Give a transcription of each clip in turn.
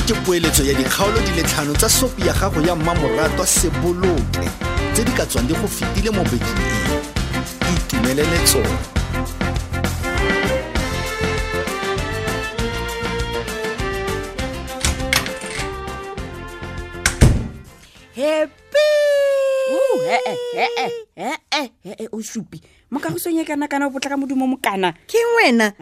Ke poeletso ya dikgaolo di le tlhano tsa sopi ya gago ya mmamoratwa Seboloke tse di ka tswang di go fetile mo bekeng e. Itumelele tsone. Happy. Ee, ee, ee, ee, o supi mo kagosong e kana kana o potlaka modumo mokana. Ke wena.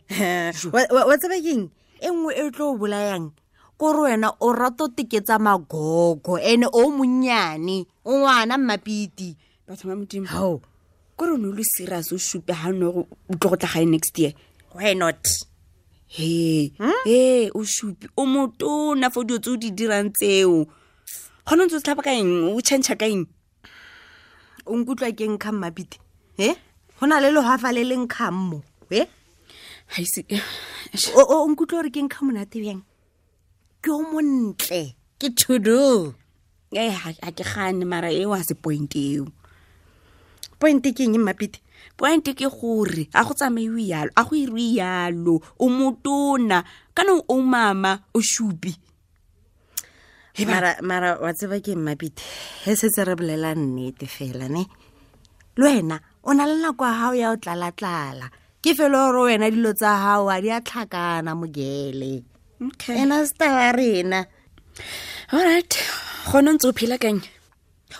Ee. Wa tseba keng e nngwe e tlo o bolayang kore wena o rata o teketsa magogo ene o monnyane o ngwana mmapiti. Batho ba Modimo. Hao. Kore o ne o le serious o supe ga nne gore o tlo go tla gae next year? Why not? He he, o supi o motona fo dilo tse o di dirang tseo, gone o ntse o tlhapa ka eng, o change ka eng? O nkutlwa ke nkga mmapiti e go na le legafa le le nkgang mo e. Ga ise. O nkutlwa gore ke nkga monate bjang, ke o montle, ke todo. Ee, ga ke gane, mara eo a se point eo. Point ke eng, mmapiti? Point ke gore a go tsamaiwe yalo, a go iriwe yalo, o motona kana o mama o shupi. Mara wa tseba ke mmapiti, he setse re bolela nnete fela ne, le wena o na le nako ya gago ya o tlala-tlala, ke fela gore wena dilo tsa gago a di a tlhakana mogele. Okay. Ena star wa rena. Alright, gone o ntse o phela kang?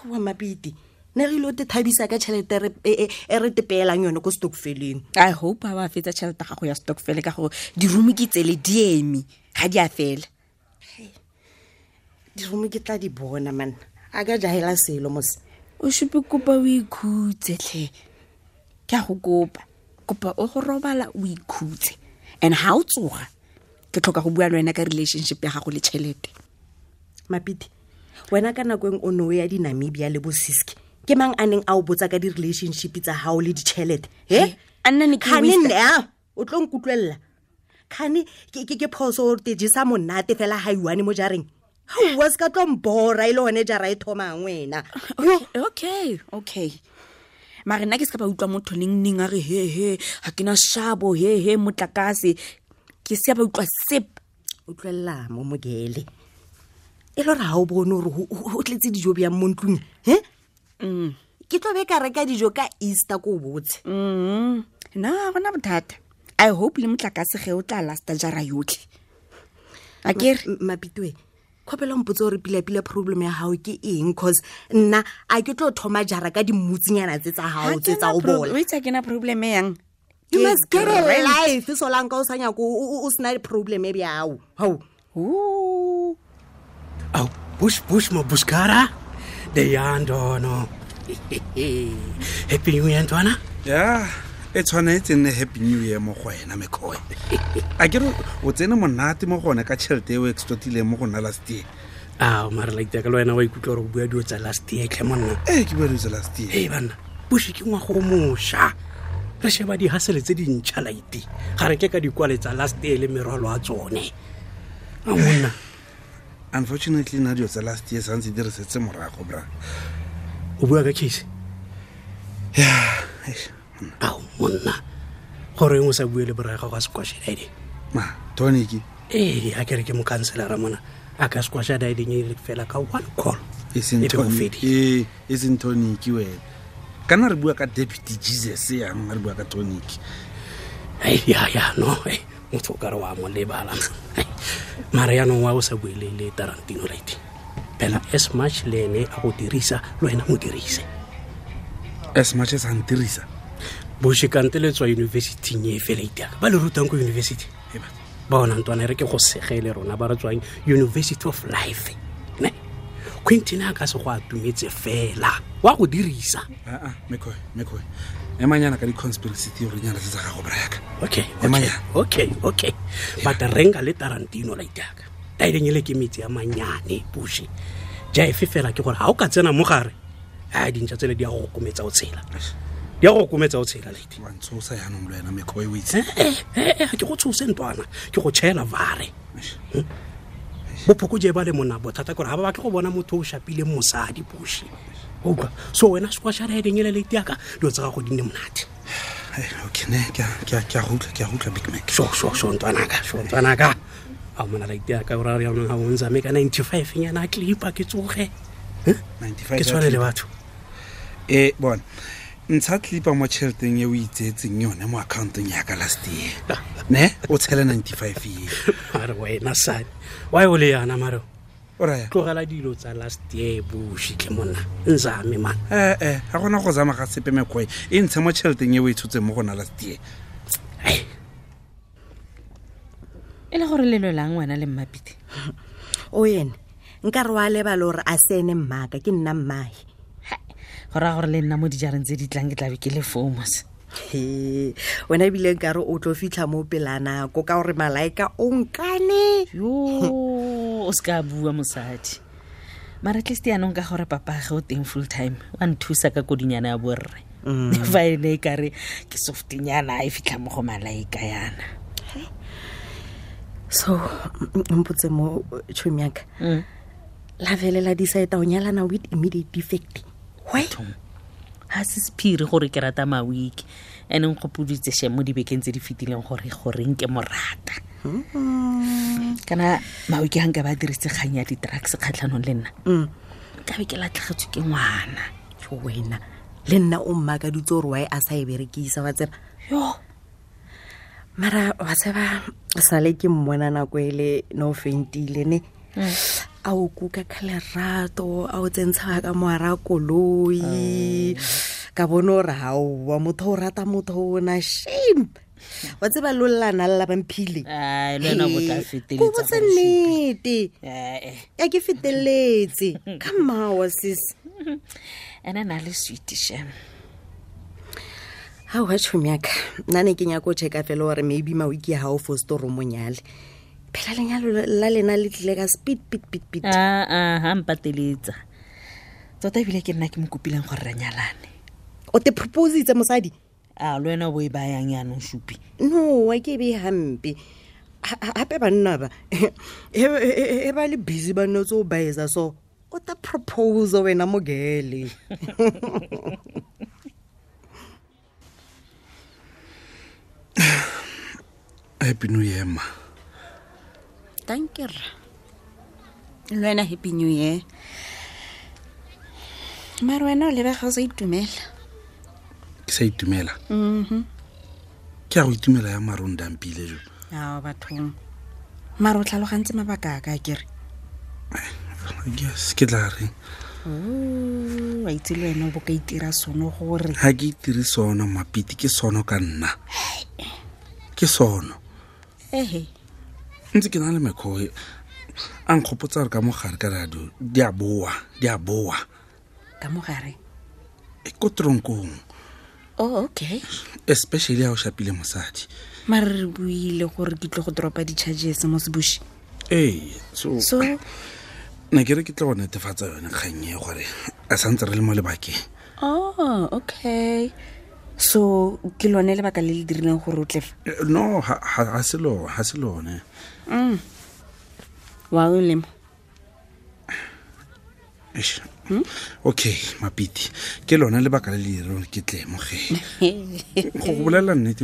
Wa mmapiti, ne re ile o te thabisa ka tšhelete e re tepeelang yone ko stokfeleng. I hope ga wa fetsa tšhelete gago ya stokfele, ka gore dirumo ke tsele di eme, ga di a fela. Dirumo ke tla di bona man, a ka jaela selo mos. O supe, kopa o ikhutse tlhe, ke a go kopa, kopa o go robala o ikhutse, and ga o tsoga ke tlhoka go bua le wena ka relationship ya gago le tšhelete. Mapiti, wena ka nako eng o ne o ya di-Namibia le bo Siski, ke mang a neng a o botsa ka di-relationship tsa gago le ditšhelete he? A nna ne ke Kgane waste- nne a o tlo nkutlwelela, kgane ke phoso gore te jesa monate fela ga iwane mo jareng gaowa, se ka tlo mbora e le gone jara e thomang wena. Okay, mare nna ke se ka ba utlwa motho neng neng a re he he, ga ke na shabo, he he motlakase, ke se ba utlwa sep. Utlwelela mo mogele, e le gore ga o bone gore go tletse dijo bjang mo ntlong he? Ke tlo be ka reka dijo ka Easter ko o botse. Na gona bothata, I hope le motlakase ge o tla lasta jara yotlhe, a kere? Mapitoe, kgopela mpotse gore pila-pila problem ya gago ke eng, cause nna a ke tlo thoma jara ka dimmutsinyana tse tsa gago tse tsa go bola. O itse ke na problem e yang? You Ke must get a rent. life solanka o sa nyako o sena problem e bjao gao. Ooh. Aw, bush bush mo bushkara. De yandono. Happy New Year, ntwana. Ya, e tshwanetse nne happy new year mo go wena, mekgoe. A ke re o tsene monate mo gone ka tšhelete e o extortileng mo go nna last year? Ah, mara like ka le wena wa ikutlwa gore o bua dilo tsa last year tlhe monna. Ee, ke bua dilo tsa last year. Hey banna, bush ke ngwago o mošwa. Re sheba dihasele tse dintšha laite. Ga re ke ka dikwale tsa last year le merwalo a tsone. A monna, Unfortunately nna dilo tsa last year santse di re setse morago, bra. O bua ka case? Ya, eish. Ao monna, gore eng o sa bue le borae gago a squash daideng? Ma tonic. Ee, a kere ke mokanselara mona, a ka squasha daideng e le fela ka one call. E seng E be go tonic. fedile. Ee, e seng tonic wena, kana re bua ka deputy Jesus yang re bua ka tonic. Ai, ya ya no, ei, motho o kare wa mo lebala. Ai, mara yaanong wa o sa bue le Tarantino right phela, as much le ene a go dirisa, le wena mo dirise. As much as a ntirisa. Boshekante le tswa universityng e fela iteaka ba le rutang ko university. Ee, batho. Ba ona ntwana, e re ke go segele rona ba re tswang University of Life ne, Quentin a ka se go atumetse fela wa go dirisa. Aa, mekgoe, mekgoe, emanyana ka di-conspiracy theory nyana tse tsa gago, brayaka. Okay. Emanyana. Okay, but renga le Tarantino la itaka taileng ele ke metsi a manyane puše jaefe fela, ke gore ga o ka tsena mo gare a dintšha tsele di ya go kometsa o tshela, di ya go kometsa o tshela lady. Wa ntshosa yaanong le wena, mekgoe, o itse. Ee, ga ke go tshose ntwana, ke go tšhela vare. Bophoko je ba le mona bothata kore ga ba batle go bona motho o shapileng mosadi puše utlwa, so wena squasha redeng ele late yaka dilo tsa gago di nne monate. Okay, ne ke a go utlwa, ke a go utlwa, Big Mac. Sho sho sho ntwanaka, sho ntwanaka. A mona la itea ka ora ya nong ga o nzame ka 95 nyana a clipa ke tsoge. 95 Ke tshwane le batho. E bona, ntsha clipa mo tšheleteng e o itseetseng yone mo accountong yaka last year, ne o tshele 95 ye. Mare wena sane wa o le yana mare. O raya? Tlogela dilo tsa last year bošitlhe monna, nzame man. Ee, ga gona go zama ga sepe, mekgwe e ntshe mo tšheleteng e o e tshotseng mo gona last year. Ai. E le gore lelo lang wena le Mmapite? O ene nka re wa lebala gore a se ene mmaka, ke nna mmae. Go raya gore le nna mo dijareng tse di tlang ke tlabe ke le fomos. He, wena ebile nkare o tlo fitlha mo pela nako ka gore Malaika o nkane. Yo, o se ka bua mosadi, mara at least yaanong ka gore papage o teng full time, wa nthusa ka kodinyana ya borre. Fa e ne e kare ke softinyana a e fitlha mo go Malaika yana. So mpotse mo, tšhomi yaka, la felela decide o nyalana with immediate effect, why? Ga se sephiri gore ke rata Mawiki, ene nkgopoditse she mo dibekeng tse di fetileng gore goreng ke mo rata. Kana Mawiki ga nka ba dirise kgang ya di-drugs kgatlhanong le nna, nkabe ke latlhegetswe ke ngwana. Jo, wena le nna o mmakaditse gore why a sa e berekisa, wa tseba. Yo. Mara wa tseba, sale ke mmona nako ele no fentile ne a o kuka ka lerato, a o tsentsha ka moara koloi, ka bone gore gaowa motho o rata motho ona, shame, wa tseba lollana lla bamphile. Ai, le wena o tla feteletsa Ko botse gore supe. nnete. Ee. Ya, ke feteletse ka mmawa sis. Ene na le sweet shem. Ga oa, tšhomi yaka, nna ne ke nyako o checka fela gore maybe Mawiki ga o foste gore o monyale, phela lenyalo la lena le tlile ka speed pit pit pit. Aa, ga mpateletsa tota, ebile ke nna ke mo kopileng gore re nyalane. O te propositse mosadi? A le wena o bo e bayang yaanong, supi? No, a ke e be hampe. Gape banna ba e ba le busy, ba nne tse o baetsa, so o ta propose wena mogele. Happy New Year, ma. Danke rra, le wena happy new year. Mare wena o lebega o sa itumela. Ke sa itumela? Ke a go itumela ya marong dampile jo. Ao bathong, mare o tlhalogantse mabaka a ka kere? Yes, ke tla reng? Wa itse le wena o bo ka itira sono gore Ga ke itire sono, Mapiti, ke sono ka nna, ke sono. Ehe. Ntse ke na le mekgwa a nkgopotsa gore ka mogare ka radio di a boa, di a boa. Ka mogare? E ko tronkong. Oh, okay. Especially ha o shapile mosadi. Mare re buile gore ke tlo go dropa di-charges mo sebushi. Ee, so, So ne ke re ke tla go netefatsa yone kgang e gore a santse re le mo lebakeng. Oh, okay, so ke lone lebaka le le dirileng gore o tlefa? No, ga se lone. Wa o lemo. Eish. Okay, Mapiti, ke lone lebaka le le direng ke tle mo ge go go bolelela nnete,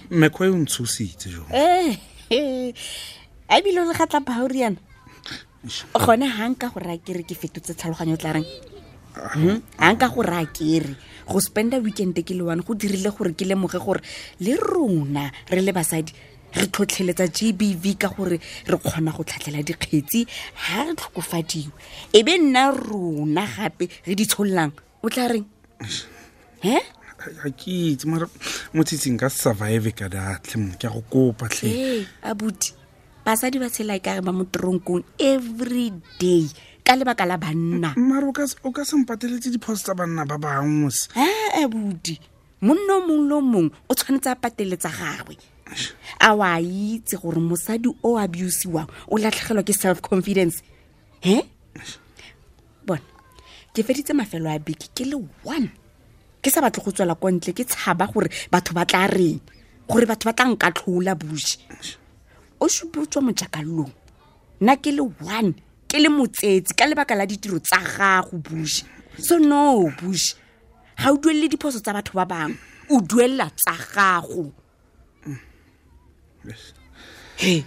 mekgwa e o ntshositse jo. A ebile o le gatla bauriana gone ga nka go raya kere ke fetotse tlhaloganyo, o tla reng? Ga nka go raya kere go spenda weekend ke le one go dirile gore ke lemoge gore le rona re le basadi re tlhotlheletsa GBV ka gore re kgona go tlhatlhela dikgetsi ga re tlhokofadiwe, e be nna rona gape re di tshololang, o tla reng he? Ga ke itse, mara motshitsing ka survive ka datlhe mo, ke a go kopa tlhe. Ee abuti, basadi ba tshela e kare ba mo tronkong every day ka lebaka la banna. Mara o ka se mpateletse diphoso tsa banna ba bangwe mose. A abuti, monna o mongwe le o mongwe o tshwanetse a pateletsa gagwe. A wa itse gore mosadi o abusiwang o latlhegelwa ke self confidence he? Bona, ke feditse mafelo a beke ke le one ke sa batle go tswela ko ntle, ke tshaba gore batho ba tla reng, gore batho ba tla nkatlhola. Buše o supe o tswa mojakalong, nna ke le one ke le motsetsi ka lebaka la ditiro tsa gago, buše. So no, buše, ga o duelele diphoso tsa batho ba bangwe, o duelela tsa gago. He.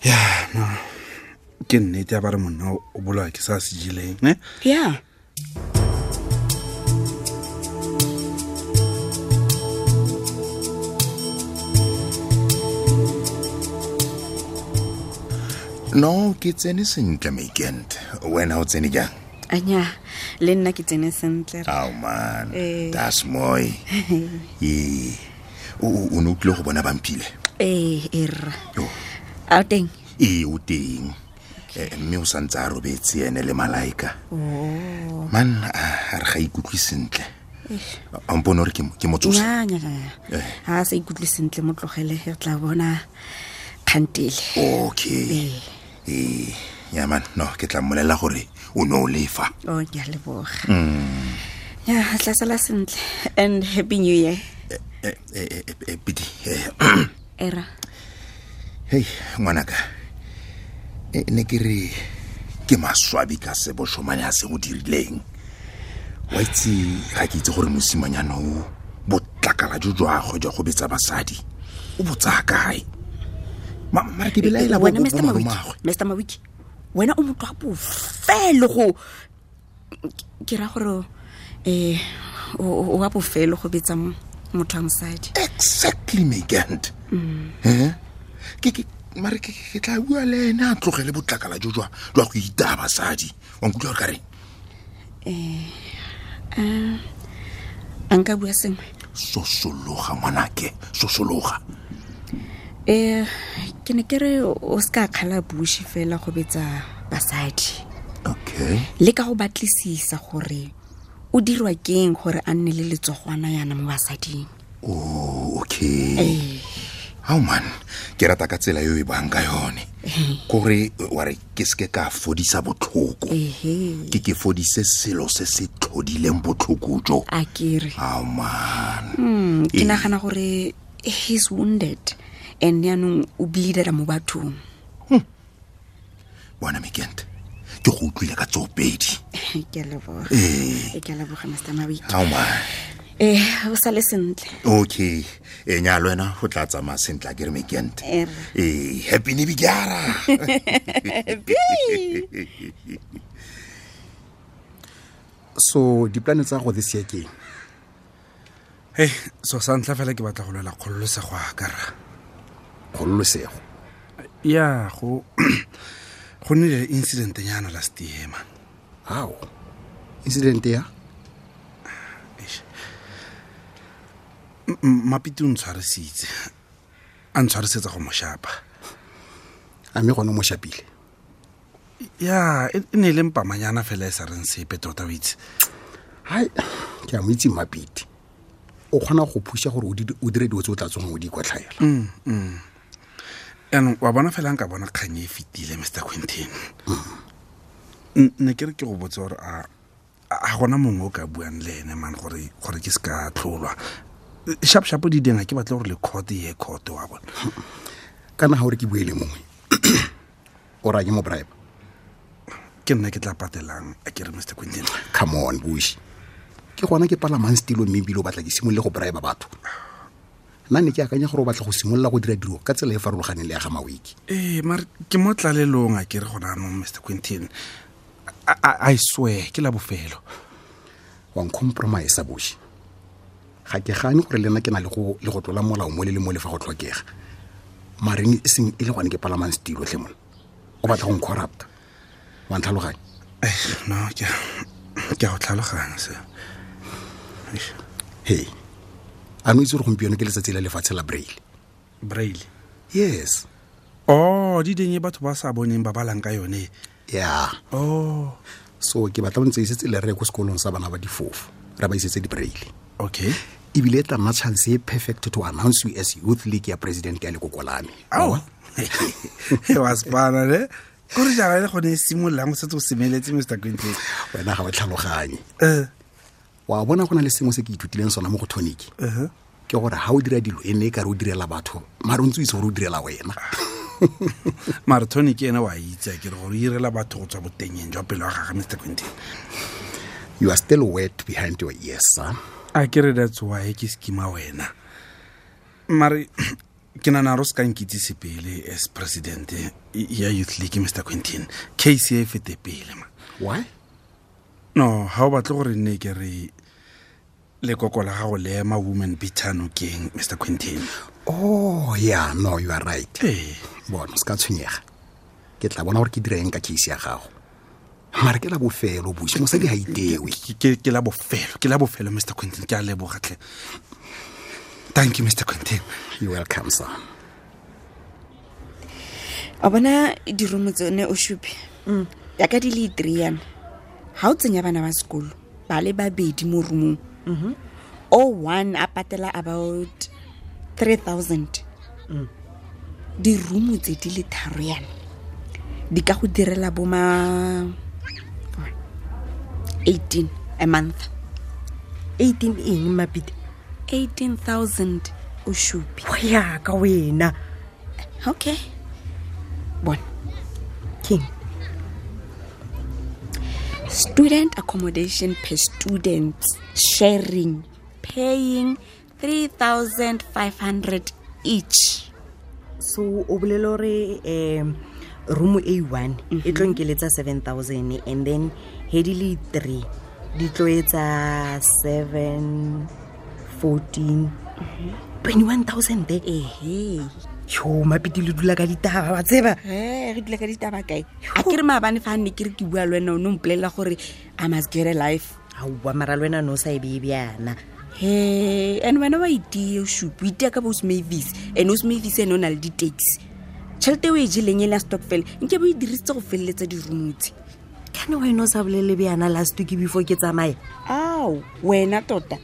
Ya no, ke nnete ya ba re monna o bolawa ke sa se jeleng ne. Ya. No, ke tsene sentle, Makent. Wena o tsene jang? Anya, le nna ke tsene sentle. Ao man. Eh. Das mooi. Ee. O ne o tlile go bona Bampile? Ee, e rra. Oh. A o teng? Ee, o teng. Mme o santse a robetse ene le Malaika. Oh. Man, a re ga ikutlwe sentle. A mpone gore ke mo tsose? Nya, nya, nya. Ha a sa ikutlwe sentle, mo tlogele, re tla bona kgantele. Okay. Ee. Ya man, no, ke tla mmolelela gore o ne o lefa. Oh, ke a leboga. Ya, tla sala sentle. And happy new year. Pidi. Era. Hey, ngwanaka. Ne ke re ke maswabi ka se boshomane a se go dirileng. Wa itse ga ke itse gore mosimanyana o botlakala jo jwa gagwe jwa go betsa basadi o bo tsaya kae. Mara ke belaela bo Wena, Mr. Mawiki, malomagwe. Mr. Mawiki, wena o motho wa bofelo go ke ra gore o wa bofelo go betsa motho wa mosadi. Exactly, Megant. Ke mare ke tla bua le ene a tlogele botlakala jo jwa go itaya basadi. Wa nkutlwa gore ka reng? A nka bua sengwe? Sosologa ngwanake, sosologa. Ke ne ke re o se ka kgala Bushi fela go betsa basadi. Okay. Le ka go batlisisa gore o dirwa keng gore a nne le letsogwana yana mo basading. Oh, okay. Ao man, ke rata ka tsela eo e bang ka yone. Kore wa re ke seke ka fodisa botlhoko. Ke fodise selo se se tlhodileng botlhoko jo. A kere. Ao man. Ke nagana gore he's wounded and yaanong o bleedela mo bathong. Bona Mekent, ke go utlwile ka tsoopedi. Ke a leboga. Ke a leboga, Mr. Mawiki. Ao man. O sale sentle. Okay. Nya le wena go tla tsamaya sentle a ke re Mekent. Happy New Year. So diplane tsa go this year ke eng? Hey, so sa ntlha fela ke batla go lwela kgololosego a ka rra. Kgololosego? Ya, go nnile le incident nyana last year, man. How? Incident ya? Mapiti o ntshwarisitse. A ntshwarisetsa go mo shapa. A mme gone o mo shapile? Ya, e ne e le mpamanyana fela e sa reng sepe tota, o itse. Hai, ke a mo itse Mapiti. O kgona go phuša gore o dire dilo tse o tla tsogang o di ikwatlhaela. Yaanong wa bona fela nka bona kgang e fetile, Mr. Quintin. Ne ke re ke go botse gore a gona mongwe o ka buang le ene man gore ke se ka tlholwa. Sharp sharp di ding ha ke batle gore le court ye court wa bona. Kana ha o re ke bue le mongwe. O ra ke mo bribe. Ke nna ke tla patelang a ke re Mr. Quintin. Come on, Bushi. Ke gona ke palamang stilo mme ebile o batla ke simolole go bribe batho. Nna ne ke akanya gore o batla go simolola go dira dilo ka tsela e farologaneng le ya ga Mawiki. Mare ke mo tlalelong a ke re gona anong, Mr. Quintin. I swear ke la bofelo. Wa ncompromise, Bushi. Ga ke gane gore le nna ke na le go tlola molao mo le le mo le fa go tlhokega. Mare e seng e le gone ke palamang stilo tlhe mona. O batla go ncorrupta. Wa ntlhaloganya? No, ke a go tlhaloganya se. Hey. A no itse gore gompieno ke letsatsi la lefatshe la Braille? Braille? Yes. Oh, di ding e batho ba sa boneng ba balang ka yone. Yeah. Oh. So ke batla o ntse isetse le re ko sekolong sa bana ba difofo. Re ba isetse di Braille. Okay. Ebile e tla nna chance e perfect to announce you as youth league ya president ya lekoko la me. Ao. Wa spana ne? Kore jara le gone e simololang o setse o semeletse, Mr. Quintin. Wena ga o tlhaloganye. Wa bona go na le sengwe se ke ithutileng sona mo go Tonic. Ke gore ha o dira dilo e ne e kare o direla batho, mare o ntse o itse gore o direla wena. Mare Tonic ene wa itse a ke re gore o irela batho go tswa botengeng jwa pelo ya gagwe, Mr. Quintin. You are still wet behind your ears, sir. A ke re that's why ke schema wena. Mare ke Ke nana ro se ka nkitsise pele as president ya youth league, Mr Quentin. Case e fete pele ma. Why? No, ha o batle gore nne ke re lekoko la gago le ema woman beater nokeng, Mr Quentin. Oh yeah, no, you are right. Ee. Bona, se ka tshwenyega, ke tla bona gore ke dira eng ka case ya gago. Mare ke la bofelo, busi, mosadi ga itewe. Ke la bofelo, ke la bofelo, Mr Quentin. Ke a leboga tlhe. Thank you, Mr Quentin. You welcome, sir. A bona dirumo tsone o supe yaka di le three yana, ga o tsenya bana ba sekolo ba le babedi mo roomong, o one a patela about 3000. Dirumo tse di le tharo yana di ka go direla bo ma 18 a month. 18 eng, Mapite? 18,000 o supe. Go yaka wena. Okay, bona. King. Student accommodation per student sharing, paying 3500 each. So o bolele gore room a one e tlo nkeletsa 7000, and then he di le three di tlo etsa 7, 14, 21,000. Ehe. Yo, Mapiti, le dula ka ditaba wa tseba. E re dula ka ditaba kae? A ke re maabane fa nne ke re ke bua le wena, o ne o mpolelela gore I must get a life. Aowa, mara le wena no sa e bee bjana. He, and wena wa itea, o supe o itea ka bo Osmavis, and Osmavis ene o na le di-taxi. Tšhelete o e jeleng e le ya stokvel nke bo e dirisitse go feleletsa dirumotse. Kane wena o sa bolele bjana last week before ke tsamaya? Ao, wena tota.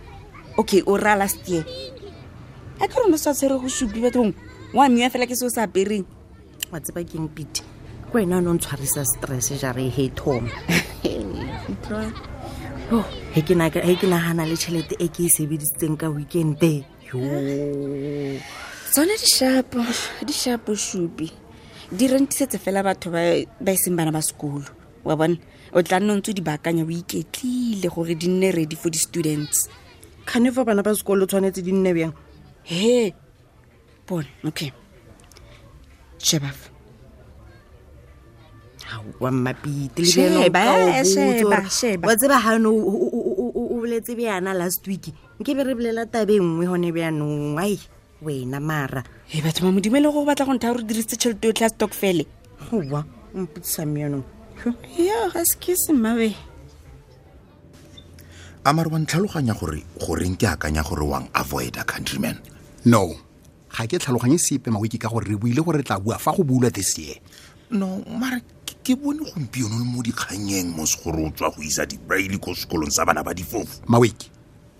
Okay, o raya last year. A ke rone o sa tshwere go supi bathong wa miwa fela ke se o sa apereng. Wa tseba keng, Pete? Ke wena o ne o ntshwarisa stress jare he thoma. Oh, he ke nagana le tšhelete e ke e sebedisitseng ka weekende yo. Tsone di-sharpo, di-sharpo supi di rentisetse fela batho ba e seng bana ba sekolo wa bona. O tla nna o ntse o di baakanya o iketlile gore di nne ready for di-students. Kgane fa bana ba sekolo tshwanetse di nne bjang? He, bona, okay, sheba fa. Aowa, Mmapite, le Sheba, bjana o ka o botsa sheba, hore- sheba. Wa tseba gane o boletse bjana last week, nke be re bolela tabe nngwe gone bjanong. Ai, wena mara. E batho ba Modimo, e le gore o batla go ntha gore dirisitse tšhelete yotlhe ya stokfele? Goa mpotsisa meanong. Yo, ga se ke semmabe. A mare wa ntlhaloganya gore goreng ke akanya gore wang avoida, countryman? No, ga ke tlhaloganye sepe, Mawiki, ka gore re buile gore re tla bua fa go bulwa this year. No, mare ke bone gompieno le mo dikganyeng mos gore o tswa go isa di-braille ko sekolong sa bana ba difofu. Mawiki,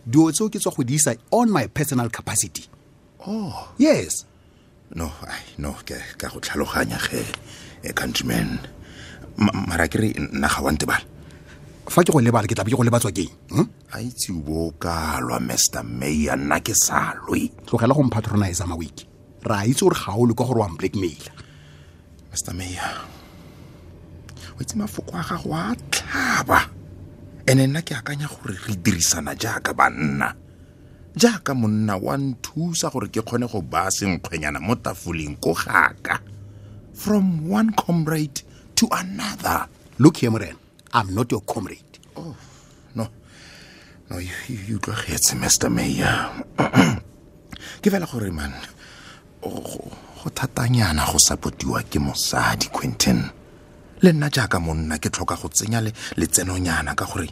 dio tseo ke tswa go di isa on my personal capacity. Oh. Yes. No, ai, no, ke ka go tlhaloganya ge, countryman. Mara ke re nna ga wa ntebala. Fa ke go lebala, ke tla be ke go lebatswa keng? A itse o bo o ka lwa, Mr Mayor, nna ke sa lwe. Tlogela go mpatronisa, Mawiki. Re a itse gore ga o le kwa gore wa blackmaila. Mr Mayor, o itse mafoko a gago a tlhaba, ene nna ke akanya gore re dirisana jaaka banna. Jaaka monna wa nthusa gore ke kgone go baya senkgwenyana mo tafoleng ko gaka, from one comrade to another. Look here, morena, I'm not your comrade. Oh, no, no, you utlwagetse, Mr Mayor. Ke fela gore man, go thatanyana go supportiwa ke mosadi, Quentin. Le nna jaaka monna ke tlhoka go tsenya letsenonyana ka gore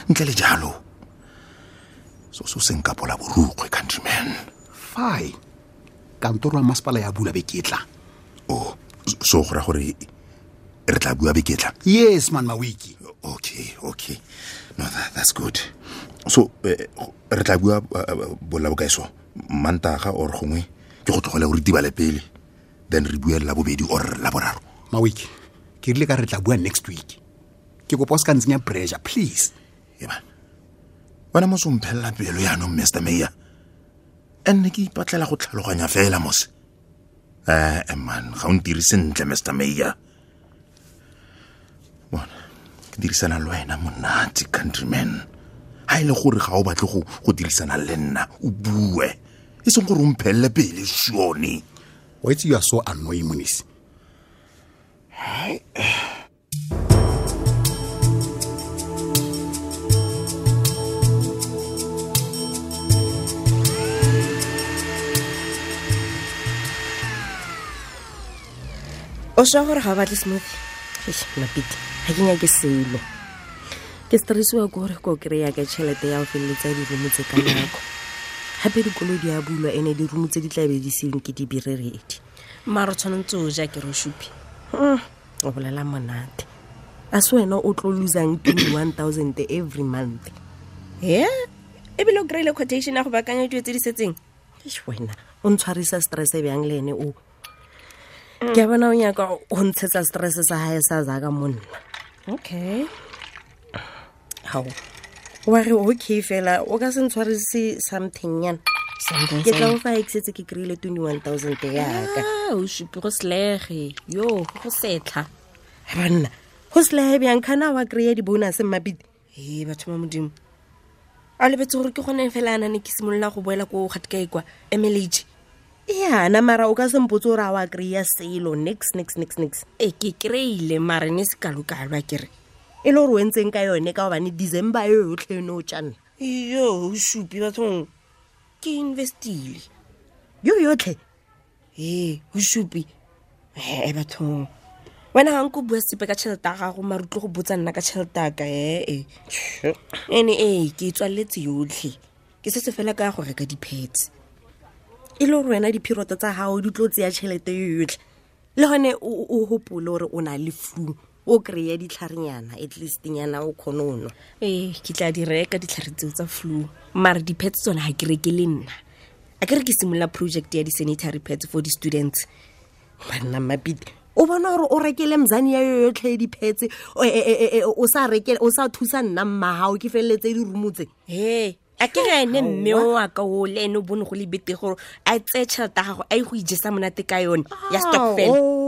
ntle le jalo so se nkapola borukgwe, countryman. Fine, kantoro ya masepala ya bula beketla. Oh, so go ra gore re tla bua beketla? Yes man, Mawiki. Okay, no, that's good. So re tla bua bolla bokae? So Mantaga or gongwe ke go tlogele gore tibale pele, then re bue la bobedi or la boraro? Mawiki, ke rile ka re tla bua next week. Ke kopa o se ka ntsenya pressure, please. Eba wena mos o mphelela pelo yaanong, Mr Mayor, and ne ke ipatlela go tlhaloganya fela mos. Ee man, ga o ntire sentle, Mr Mayor. Bona, ke dirisana le wena monate, countryman. Ha e le gore ga o batle go dirisana le nna, o bue. E seng gore o mphelele pele sone. Wa itse, you are so annoying, Monisi. O swa gore ga o batle smoothie? Eish, Mapite, ga ke nyake selo. Ke stressiwa ke gore ko kry-a ka tšhelete ya go feleletsa dirumo tse ka nako. Gape dikolo di a bulwa, ene dirumo tse di tlabe di seng ke di bireredi. Maro tshwanetse o ja, ke re o supi. O bolela monate, a se wena o tlo losang 21 000 every month? E ebile o kry-ile quotation ya go baakanya dilo tse di setseng. Eish, wena o ntshwarisa stress bjang le ene o? Ke a bona o nyaka go ntshetsa stress sa gae sa zaka monna. Okay. Gao, wa re okay fela, o ka se ntshwarise something nyana? Something? Ke tla o fa e ke setse ke kry-ile 21 000 yaka. Ah, o supi, go selege yo go setlha. Banna, go selege bjang? Kana wa kry-a di-bonus, Mmapite? Ee, batho ba Modimo, a lebetse gore ke gone fela a nane ke simolola go boela ko gatikae kwa MLH. Yana, mara o ka sempotse gore a wa kry-a selo nix nix nix nix? Ee, ke kry-ile, mare ne se kalokalo a kere. E le gore o entseng ka yone? Ka gobane December e yotlhe ene o tjanna. Yo, o supi bathong, ke investile. Yo yotlhe? Ee, o supi ee bathong, wena ga nko bua sepe ka tšhelete ya gago, mare o tlo go botsa nna ka tšhelete yaka. Ee, ene ee, ke e tswaletse yotlhe, ke setse fela ka ya go reka di-pads. E le gore wena diphiroto tsa gago di tlo tseya tšhelete yo yotlhe? Le gone o gopole gore o na le flu, o kry-e ditlharenyana at least nyana o kgone o nwa. Ee, ke tla di reka ditlhare tseo tsa flu, mare di-pads tsone ga ke reke le nna. A ke re ke simolola project ya di-sanitary pads for di-students. Banna, Mapite, o bona gore o rekele mzane ya yo yotlhe di-pads, o sa reke, o sa thusa nna mmagao ke feleletse dirumo tse. He, a ke re ene mme o wa ka o le ene o bone go le bete gore a tseye tšhelete ya gago a ye go ijesa monate ka yone ya stokvel.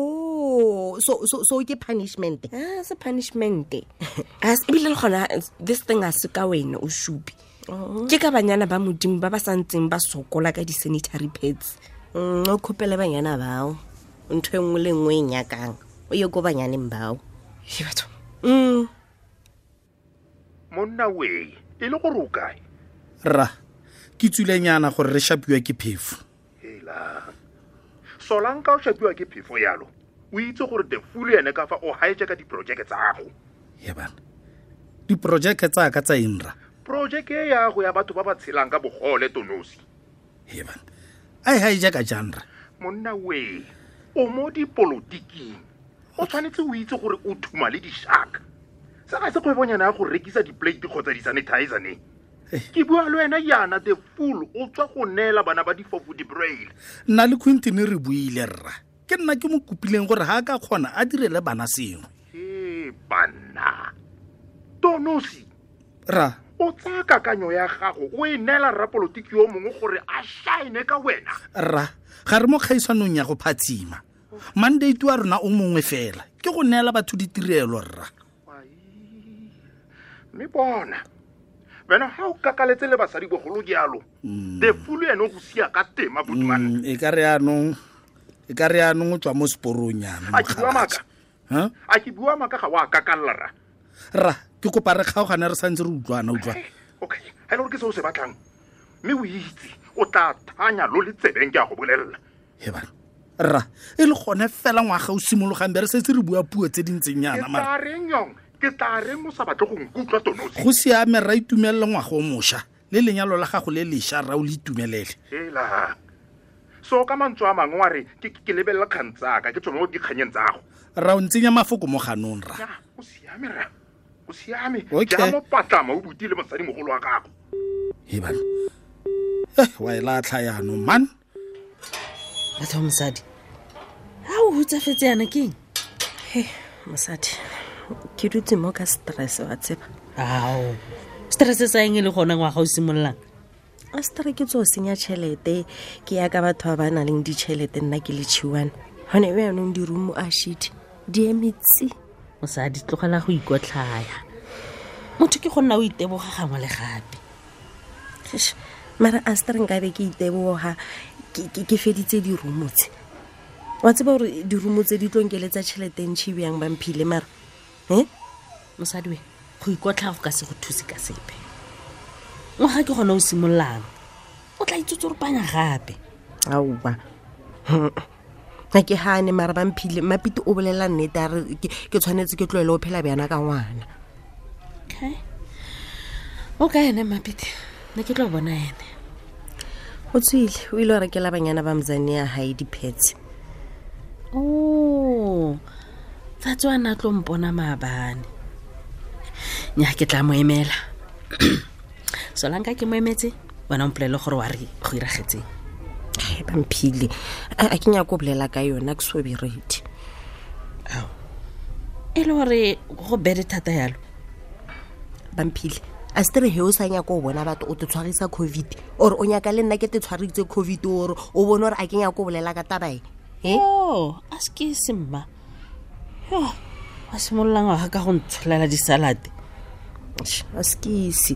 Oh, so ke punishment? Ah, se punishment. Ebile le gona this thing a se ka wena o supi, ke ka banyana ba Modimo ba ba santseng ba sokola ka di-sanitary pads. O khopele banyana bao ntho e nngwe le nngwe e nyakang, o ye ko banyaneng bao. He, batho. Monna we, e le gore o kae? Rra, ke tswilenyana gore re shapiwa ke phefo. Hela, solanka o shapiwa ke phefo yalo, o itse gore the fool ene ka fa o hijacka diprojeke tsa gago. Ye bana, diprojeke tsa ka tsa eng, rra? Projeke e yago ya batho ba ba tshelang ka bogole, Tonosi. Ye bana, a e hijacka jang, rra? Monna we, o mo dipolotiking, o tshwanetse o itse gore o thuma le di-shark. Se ga se kgwebonyana ya go rekisa di-plate kgotsa di-sanitizer ne. Ke bua le wena yana, the fool o tswa go neela bana ba difofu di-braille. Nna le Quentin re buile, rra. Ke nna ke mo kopileng gore ga a ka kgona a direle bana sengwe. E banna, Tonosi. Rra. O tsaya kakanyo ya gago o e neela rrapolotiki yo mongwe gore a shine ka wena. Rra, ga re mo kgaisanong ya go phatsima. Mandate wa rona o mongwe fela ke go neela batho ditirelo, rra. Mme bona wena ga o kakaletse le basadi bogolo jalo, the fool ene o go sia ka tema, botumane. E ka re yanong o tswa mo seporong yana. A ke bua maaka? Ha? A ke bua maaka? Ga o a kakalla, rra. Rra, ke kopa re kgaogane re santse re utlwana, utlwa. Okay, ga e le gore ke se o se batlang, mme o itse o tla thanya lo le tsebeng, ke a go bolelela. He bana, rra, e le gone fela ngwaga o simologang be re setse re bua puo tse di ntseng yana, Ke mara. tla reng yong? Ke tla reng o sa batle go nkutlwa, Tonosi? Go siame, rra, itumelele ngwaga o mošwa le lenyalo la gago le lešwa, rra, o le itumelele. Hela, so ka mantswe a mangwe wa re ke lebelela kgang tsaka, ke tswe mo dikganyeng tsa gago. Rra, o ntsenya mafoko mo ganong, rra. Ya, o siame, rra, o siame. Okay. Ja mo patlama o butile mosadimogolo wa gago. He bana, wa e latlha yaanong man. Batho ba mosadi, ga o hutsafetse yana ke eng? He, mosadi, ke dutse mo ka stress, wa tseba. Ao, stress sa eng e le gona ngwaga o simololang? A stre ke tso senya tšhelete ke ya ka batho ba ba nang le ditšhelete, nna ke le chiwana gone yaanong dirumo a shit di emetsi. Mosadi, tlogela go ikotlhaya, motho ke go nna o iteboga gangwe le gape. Eish, Mara a se re nkabe ke iteboga ke feditse dirumo tse. Wa tseba gore dirumo tse di tlo nkeletsa tšhelete ntšhi bjang Bamphile mara e Mosadi we, go ikotlha go ka se go thuse ka sepe. Ngwaga ke gone o simololang, o tla itsotsoropanya gape. Aowa, ga ke gane mara Bamphile, Mapite o bolela nnete a re ke tshwanetse ke tloele o phela bjana ka ngwana. Okay, o ka ene Mapite? Ne ke tlo bona ene. O tswile, o ile o rekela banyana ba mzane ya gae diphetse. O tsatsi wa na tlo mpona maabane. Nya, ke tla mo emela. Solanka ke mo emetse, wena o mpolele gore wa re go iragetseng. Ai, Bamphile, a ke nyako bolela ka yona, ke so be ready. E le gore go bede thata yalo? Bamphile, a se tere he o sa nyaka o bona batho o te tshwarisa COVID, or o nyaka le nna ke te tshwaritse COVID ore o bone gore a ke nyako bolela ka tabae e? O a se ke se mma yo wa simolola ngwaga ka go ntsholela disalate. A se ke ise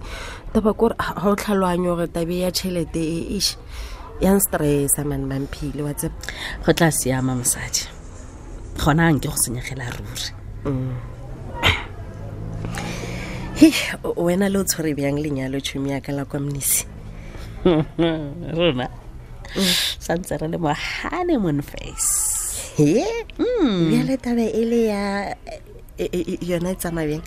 taba kore ga o tlhaloganye gore tabe ya tšhelete e ish ya nstressa mane Bamphile, wa tseba. Go tla siama mosadi, gona a nke go senyegela ruri. He, wena le o tshwere bjang lenyalo tšhomi ya ka la kwa Mnisi? Rona santse re le mo honeymoon phase. He, bjale tabe e le ya yona e tsamaya bjang?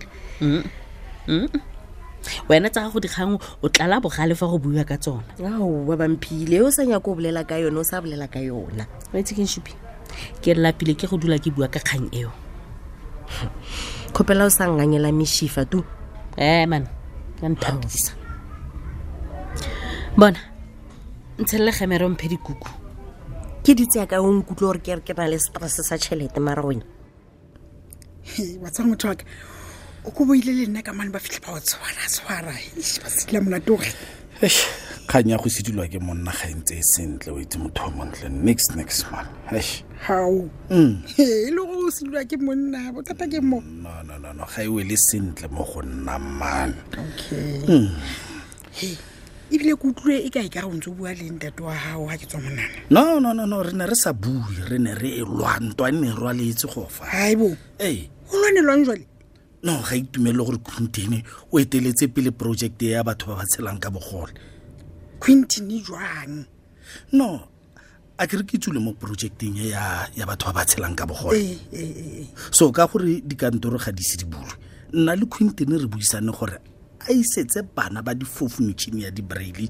Wena tsa gago dikgang o tlala bogale fa go buiwa ka tsona. Aowa Bamphile, o sa nyako o bolela ka yona, o sa bolela ka yona. Wa itse keng Shupi, ke lapile ke go dula ke bua ka kgang eo. Kgopela o sa ngangela meshifa tu. Ee man, ka nthapisa bona, ntshelele gemere o mphe dikuku. Ke ditse ya ka o nkutlwe gore ke re ke na le stress sa tšhelete mara wena. Wa tseba motho wa ka, o ko boile le nna ka mane ba fitlhe ba o tshwara tshwara. Eish, ba sedila monate gore. Eish, kgang ya go sedilwa ke monna ga e ntse e sentle, o itse motho o montle. Nix, nix man. Eish. Hao. E le gore o sedilwa ke monna, bothata ke mo. No, no, no, no, ga e wele sentle mo go nna man. Okay. He, ebile ke utlwile e ka e ka re o ntse o bua le ntate wa gago ga ke tswa monana. No, no, no, no, re ne re sa bue, re ne re e lwa, ntwa e ne e rwaletse go fa. Haibo. Ee. O lwanelwang jwale? No, ga itumelele gore Quintin o eteletse pele project ya batho ba ba tshelang ka bogole. Quintin jwang? No, a ke re ke tsule mo projecteng e ya batho ba ba tshelang ka bogole. So ka gore dikantoro ga di se di bulwe, nna le Quintin re buisane gore a isetse bana ba difofu metšhini ya di-braille.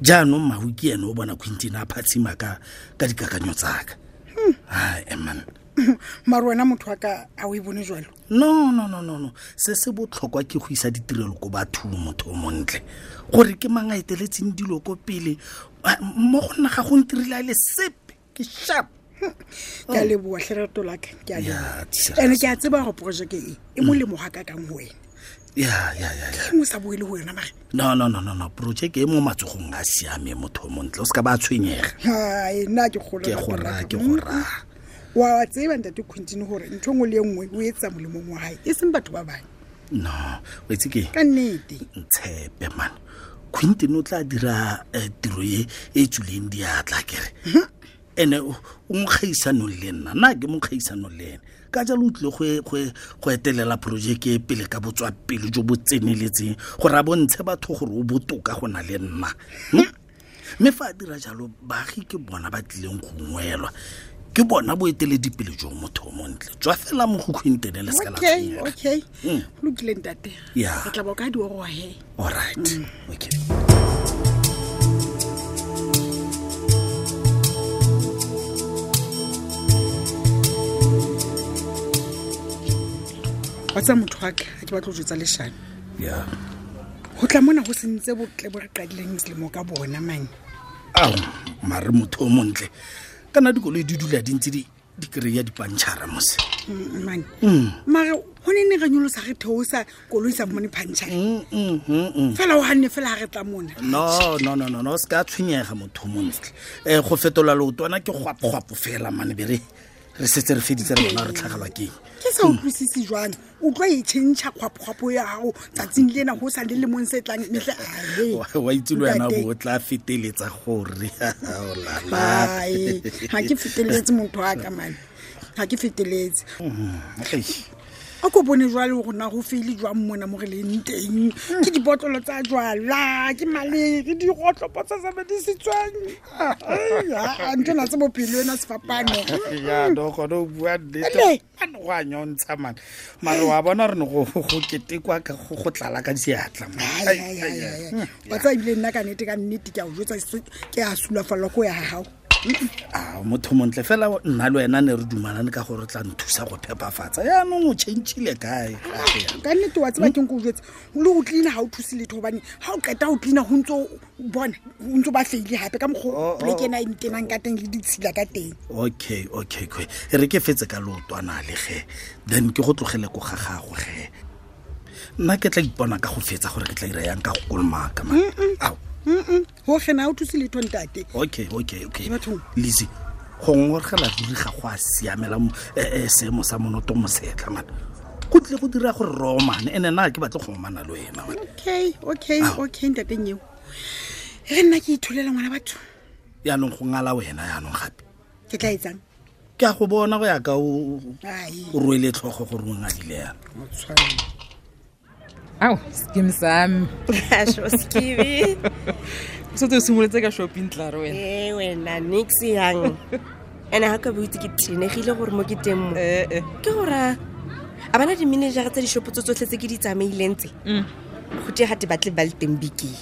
Jaanong Mahu ke ene o bona Quintin a phatshima ka dikakanyo tsaka. Ai, man. Mara wena motho wa ka a o e bone jwalo? No, no, no, no, no. Se se botlhokwa ke go isa ditirelo ko bathong, motho o montle. Gore ke mang a eteletseng dilo ko pele, mo go nna ga go ntirile a le sepe, ke sharp. Ke a leboha hle lerato la ka, ke a Ya, leboha. Tshegetso. Ene ke a tseba gore projeke e, e molemo ga ka kang ho wena. Ya, ya, ya, ya. Ke eng o sa boele ho yona mare? No, no, no, no, no. Projeke e mo matsogong a siame, motho o montle. O se ka ba tshwenyega. Hai, nna ke kgolwa Ke lerato go la raya, ka. ke go raya. Wa tseba ntate Quintin hore ntho e nngwe le e nngwe o etsa molemong wa hae, e seng batho ba bang. No, o itse ke? Ka nnete. Ntshepe man. Quintin o tla dira tiro e e tswileng diatla kere. Ene o mo kgaisanong le nna, nna ke mo kgaisanong le ene. Ka jalo o tlile go etelela projeke e pele ka botswapele jo bo tseneletseng gore a bontshe batho gore o botoka go na le nna. Mme fa a dira jalo, baagi ke bona ba tlileng go ungwelwa. Ke bona boeteledipele jo motho o montle. Tswa fela mo go Quintin le se ka la Okay, tshwenyega. okay. Ho lokile ntate. Ya. Re tla ba ka di oroha he. All right. Okay. Wa tseba motho wa ka, ha ke batla ho jwetsa leshano. Ya. Ho tla mona ho sentse botle bo re qadileng selemo ka bona mane. Ao, mare motho o montle. Kana dikoloi di dula di ntse di kry-a dipantšhara mose. Mane. Mare ho ne ne re nyolosa re theosa koloi sa fumane pantšhara. Fela o hanne fela ha re tla mona. No, no, no, no, no, se ka tshwenyega motho o montle. Go fetola leotwana ke gwapogwapo fela mane, be Re setse re feditse re bona re tlhagelwa ke eng. Ke sa utlwisise jwang o tlo e tšhentšha kgwapokgwapo ya gago tsatsing lena go sa le lemong se tlang metlhe Wa itse le wena bo o tla feteletsa gore o lala. Ai, ga ke feteletse motho wa ka mane, ga ke feteletse. Eish. A ko bone jwale gore na go feile jwang mona mo re leng teng, ke dibotlolo tsa jwala, ke malere, digotlopo tsa sebedisitsweng. Ntho na tse bophelo ena sefapano. Ya no gone o bua nnete. Ele. Mane go a nyontsha mane, mare wa bona re ne go ketekwa ka go tlala ka diatla man. Ai, ai, ai, ai. Wa tseba ebile nna ka nnete ka nnete ke a o jwetsa, ke a sulafallwa ko ya ga gago. A motho montle fela, nna le wena ne re dumalane ka gore o tla nthusa go phepafatsa, yaanong o changile kae gape yana? Ka nnete wa tseba keng ko o jwetse, le go cleana ga o thuse letho, gobane ga o qeta go cleana go ntse o bona o ntse o ba feile gape ka mokgwa Oh, oh. poleke ena e ntenang ka teng le ditshila ka teng. Okay, e re ke fetse ka leotwana le ge, then ke go tlogele ko ga gago ge, nna ke tla ipona ka go fetsa gore ke tla ira yang ka go kolomaka man. Ao. Go gena ga o thuse letho ntate. Okay. Bathong. Lizzy, go ngorgela ruri ga go a siamela seemo sa monoto mosetlha man, go tlile go dira gore re omane, ene nna ga ke batle go omana le wena man. Okay, ntateng eo e re nna ke itholela ngwana batho. Yaanong go ngala wena yaanong gape. Ke tla etsang? Ke a go bona go ya ka o Ai. o rwele tlhogo gore o ngadile yana. Ao, skim sami. Asho skibi. O setse o simolotse ka shopping tlare wena. E wena nix yang. Ene ga ka bo itse ke tenegile gore mo ke teng mo. Eh. Ke gore a bana di-managera tsa dishopo tse tsotlhe tse ke di tsamaileng tse. Go tie gate batle ba le teng bekeng.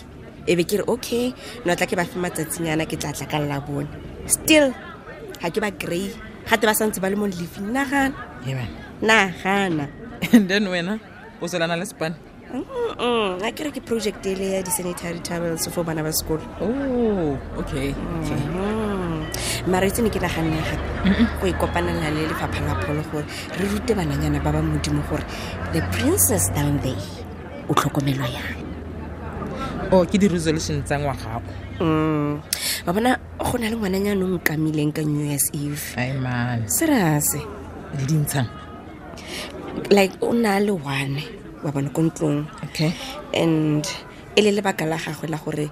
E be ke re okay, no tla ke ba fe matsatsinyana, ke tla tla ka la bone. Still ga ke ba kry, gate ba santse ba le mo leafing. Nagana. Ee, wena. Nagana. And then wena o tswelana le span. A ke re ke project ele ya di-sanitary towels for bana ba sekolo. Oh, okay. Mara itse ne ke naganne gape go ikopanela le lefapha la pholo gore re rute bananyana ba ba modimo gore the princess down there o tlhokomelwa yang. Oh, ke di-resolution tsa ngwagago. Wa bona go na le ngwananyana o nkamileng ka New Year's Eve. Ai man. Serase. Le dintshang. Like o na le one wa bona ko ntlong. Okay. And e le lebaka la gagwe la gore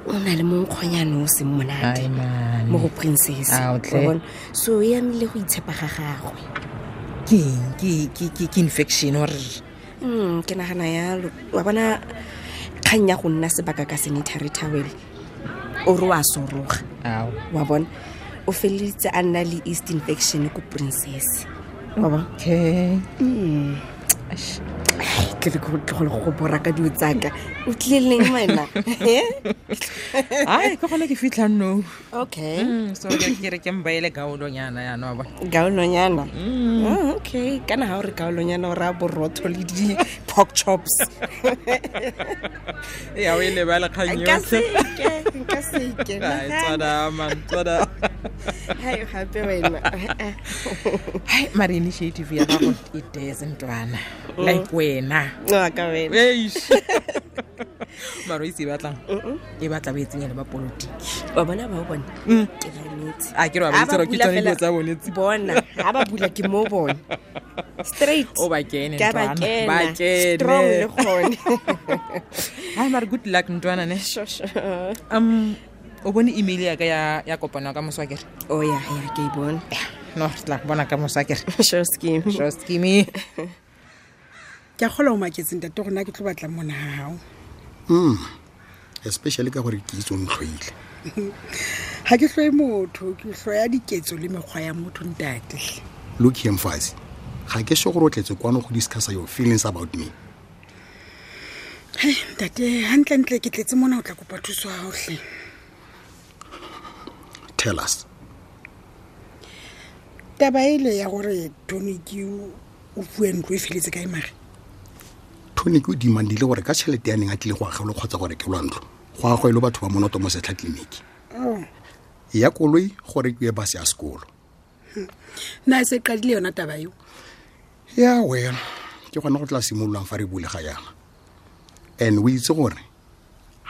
o na le monkgonyane o seng monate Ai man. mo go princess. Ao, tle. Wa bona? So e amile go itshepa ga gagwe. Ke eng? Ke infection or Ke nagana yalo. Wa bona kgang ya go nna sebaka ka sanitary towel o re wa soroga. Ao. Wa bona o feleleditse a nna le east infection ko princess. Wa bona? Okay. Ai, tle ke go tlogele go bora ka dilo tsaka, o tlile leng wena? Ai, ke gone ke fitlhang no. Okay. So ke re ke mbaele gaolonyana yana wa bona. Gaolonyana? Oh, okay, kana ga o re gaolonyana o raya borotho le di-pork chops. Ya o e lebale kgang Nka yotlhe. seke, nka seke. Ai, tswada man, tswada. Hai, gape wena. Hai, mare initiative ya gago e tese ntwana. Like wena. Wa ka wena. Eish. Mare o itse e batlang? E batla ba e tsenya le ba politiki. Wa bona ba o bona? Ke ba emetse. A ke re wa ba Ha itse gore ke bula tsone dilo fela- tsa bone tse. Bona, ha ba bula ke mo bona. Straight. O ba kene, Ke a ba ntwana. kena. Ba kene. Strong le gone. Hai, mare good luck ntwana ne. Sure, sure. O bone email ya ka ya kopano ya ka moso akere? Oh ya, ya ke e bone. No, re tla go bona ka moso akere. Sure scheme. Sure scheme. Ke a kgola o maketse ntate gore na ke tlo batlang mona ga gago. Especially ka gore ke itse o ntlhoile. Ga ke hloe motho, ke hloya diketso le mekgwa ya motho ntate. Look here, mfazi, ga ke sure gore o tletse kwano go discussa your feelings about me. Hei ntate, gantlentle ke tletse mona o tla kopa thuso ya gaotlhe. Tell us. Taba ele ya gore toniki o fuwe ntlo e feletse kae mare? Tonic o demandile gore ka tšhelete ya neng a tlile go agelwa kgotsa go rekelwa ntlo, go agwelwe batho ba monoto mo setlha tleliniki. Oh. Ya koloi go rekiwe base ya sekolo. Na e se qadile yona taba eo? Ya well, ke gona go tla simololang fa re bulega yana. And o itse gore